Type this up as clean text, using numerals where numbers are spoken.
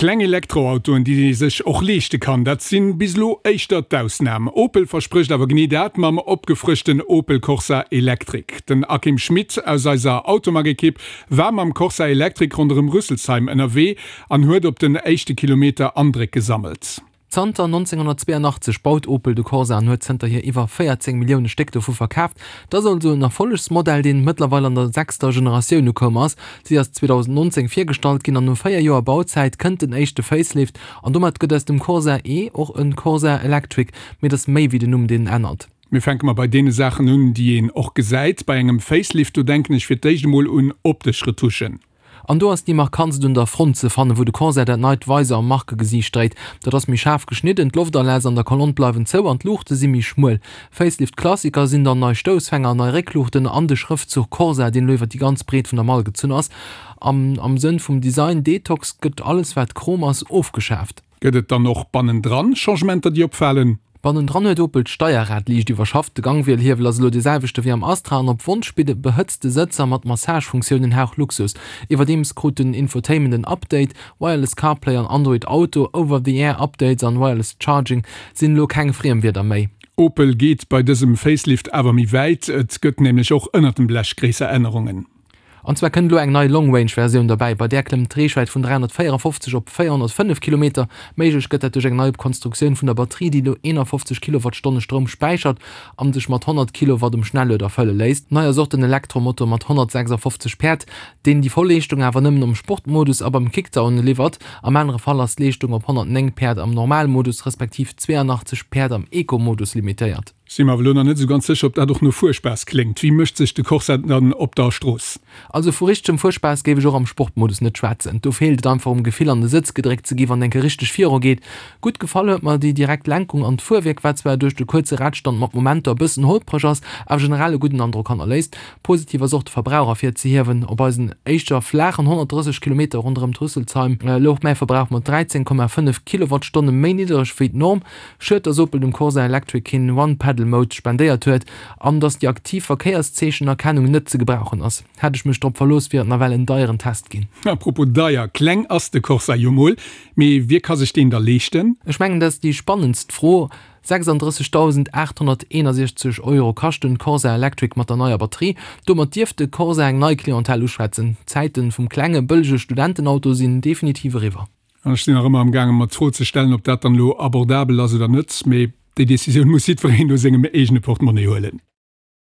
Kleng Elektroautoen, déi ee sech och leeschte kann, dat sinn bis elo éischter d'Ausnam. Opel versprécht awer genee dat mam opgefrëschten Opel Corsa Electric. Den Akim Schmit aus eiser Automag-Ekipp war mam Corsa Electric ronderëm Rüsselsheim ënnerwee an huet op den éischte Kilometer Andréck gesammelt. Zanter 1982 baut Opel de Corsa an huet zënterhier iwwer 14 Millioune Stéck dovu verkaaft. Et ass also en Erfollegsmodell, deen mëttlerweil an der sechster Generatioun ukoum ass. Si ass 2019 virgestallt ginn an no 4 Joer Bauzäit kënnt den éischte Facelift an domat gëtt aus dem Corsa E och e Corsa Electric. Mee et ass méi wéi den Numm, deen ännert. Mir fänke mer bei deene Saachen un, déi een och gesäit. Bei engem Facelift, do denken ech fir d'éischt emol un optesch Retuschen. An do ass déi markantst un der Front ze fannen, wou de Corsair dat neit Weiser am Markegesiicht dréit. Dat ass méi schaarf geschnidden, d'Loftaläss an der Kolonn bleiwen zou an d'Luuchte si méi schmuel. Facelift-Klassiker sinn dann nei Stoussfänger an nei Réckluuchten an de Schrëftzuch Corsa, deen elo iwwer déi ganz Breet vun der Mall gezunn ass. An am Sënn vum Design Detox gëtt alles wat Chrom ass ofgeschaaft. Gëtt et dann och bannendran Changementer, déi opfalen? Bannendran huet Opel d'Steierrad liicht iwwerschafft. De Gangwielhiewel ass elo dee selwechte wéi am Astra an op Wonsch bidde behëtzte Sëtzer mat Massagefunktioun en Hauch Luxus. Iwwerdeems krut den Infotainment en Update, Wireless CarPlay an Android Auto, Over-the-Air Updates an Wireless Charging sinn elo keng Friemwierder méi. Opel geet bei dësem Facelift awer méi wäit, et gëtt nämlech och ënnert dem Blech gréisser Ännerungen. An zwar kënnt elo eng nei Long Range Versioun derbäi, bei där klëmmt d'Reechwäit vun 354 op 405 Kilometer. Méiglech gëtt dat duerch eng nei Konstruktioun vun der Batterie, déi elo 51 Kilowattstonne Stroum späichert an sech mat 100 Kilowatt um Schnellueder fëlle léisst. Nei ass och den Elektromotor mat 156 Päerd, deen déi voll Leeschtung awer nëmmen am Sportmodus a beim Kickdown liwwert. Am anere Fall ass d'Leeschtung op 109 Päerd am Normalmodus respektiv 82 Päerd am Eco-Modus limitéiert. Si mer awer elo nach net esou ganz sécher, ob dat och no Fuerspaass kléngt. Wéi mécht sech de Corsa dann op der Strooss? Also vu richtegem Fuerspaass géif ech och am Sportmodus net schwätzen. Do feelt et einfach um Gefill an de Sëtz gedréckt ze gi wann enke richteg viru geet. Gutt gefall huet mer déi direkt Lenkung an d'Fuerwierk, wat zwar duerch de kuerze Radstand mat Momenter e bëssen holpreg ass, awer generell e gudden Androck hannerléisst. Positiv ass och de Verbrauch ervirzehiewen. Op eisen éischter flaachen 130 Kilometer ronderëm d'Rüsselsheim louch mäi Verbrauch mat 13,5 Kilowattstonne méi niddereg wéi d'Norm. Schued, dass Opel dem Corsa Electric keen One-Pedal-Mode spendéiert huet an dass déi aktiv Verkéierszeechenerkennung net ze gebrauchen ass. Hätt ech mech drop verlooss, wier et nawell en deieren Test ginn. A propos deier, kleng ass de Corsa jo mol, mee wie ka sech deen da leeschten? Ech mengen, dat ass déi spannendst Fro. 36.861 Euro kascht den Corsa Electric mat der neier Batterie. Domat dierft de Corsa eng nei Clientèle uschwätzen. D'Zäiten vum klenge, bëllege Studentenauto sinn definitiv eriwwer. An ech sinn nach ëmmer am gaangen, mer d'Fro ze stellen, ob dat dann elo abordabel ass oder net. Mee déi Décisioun muss jiddwereen no sengem eegene Portemonnaie huelen.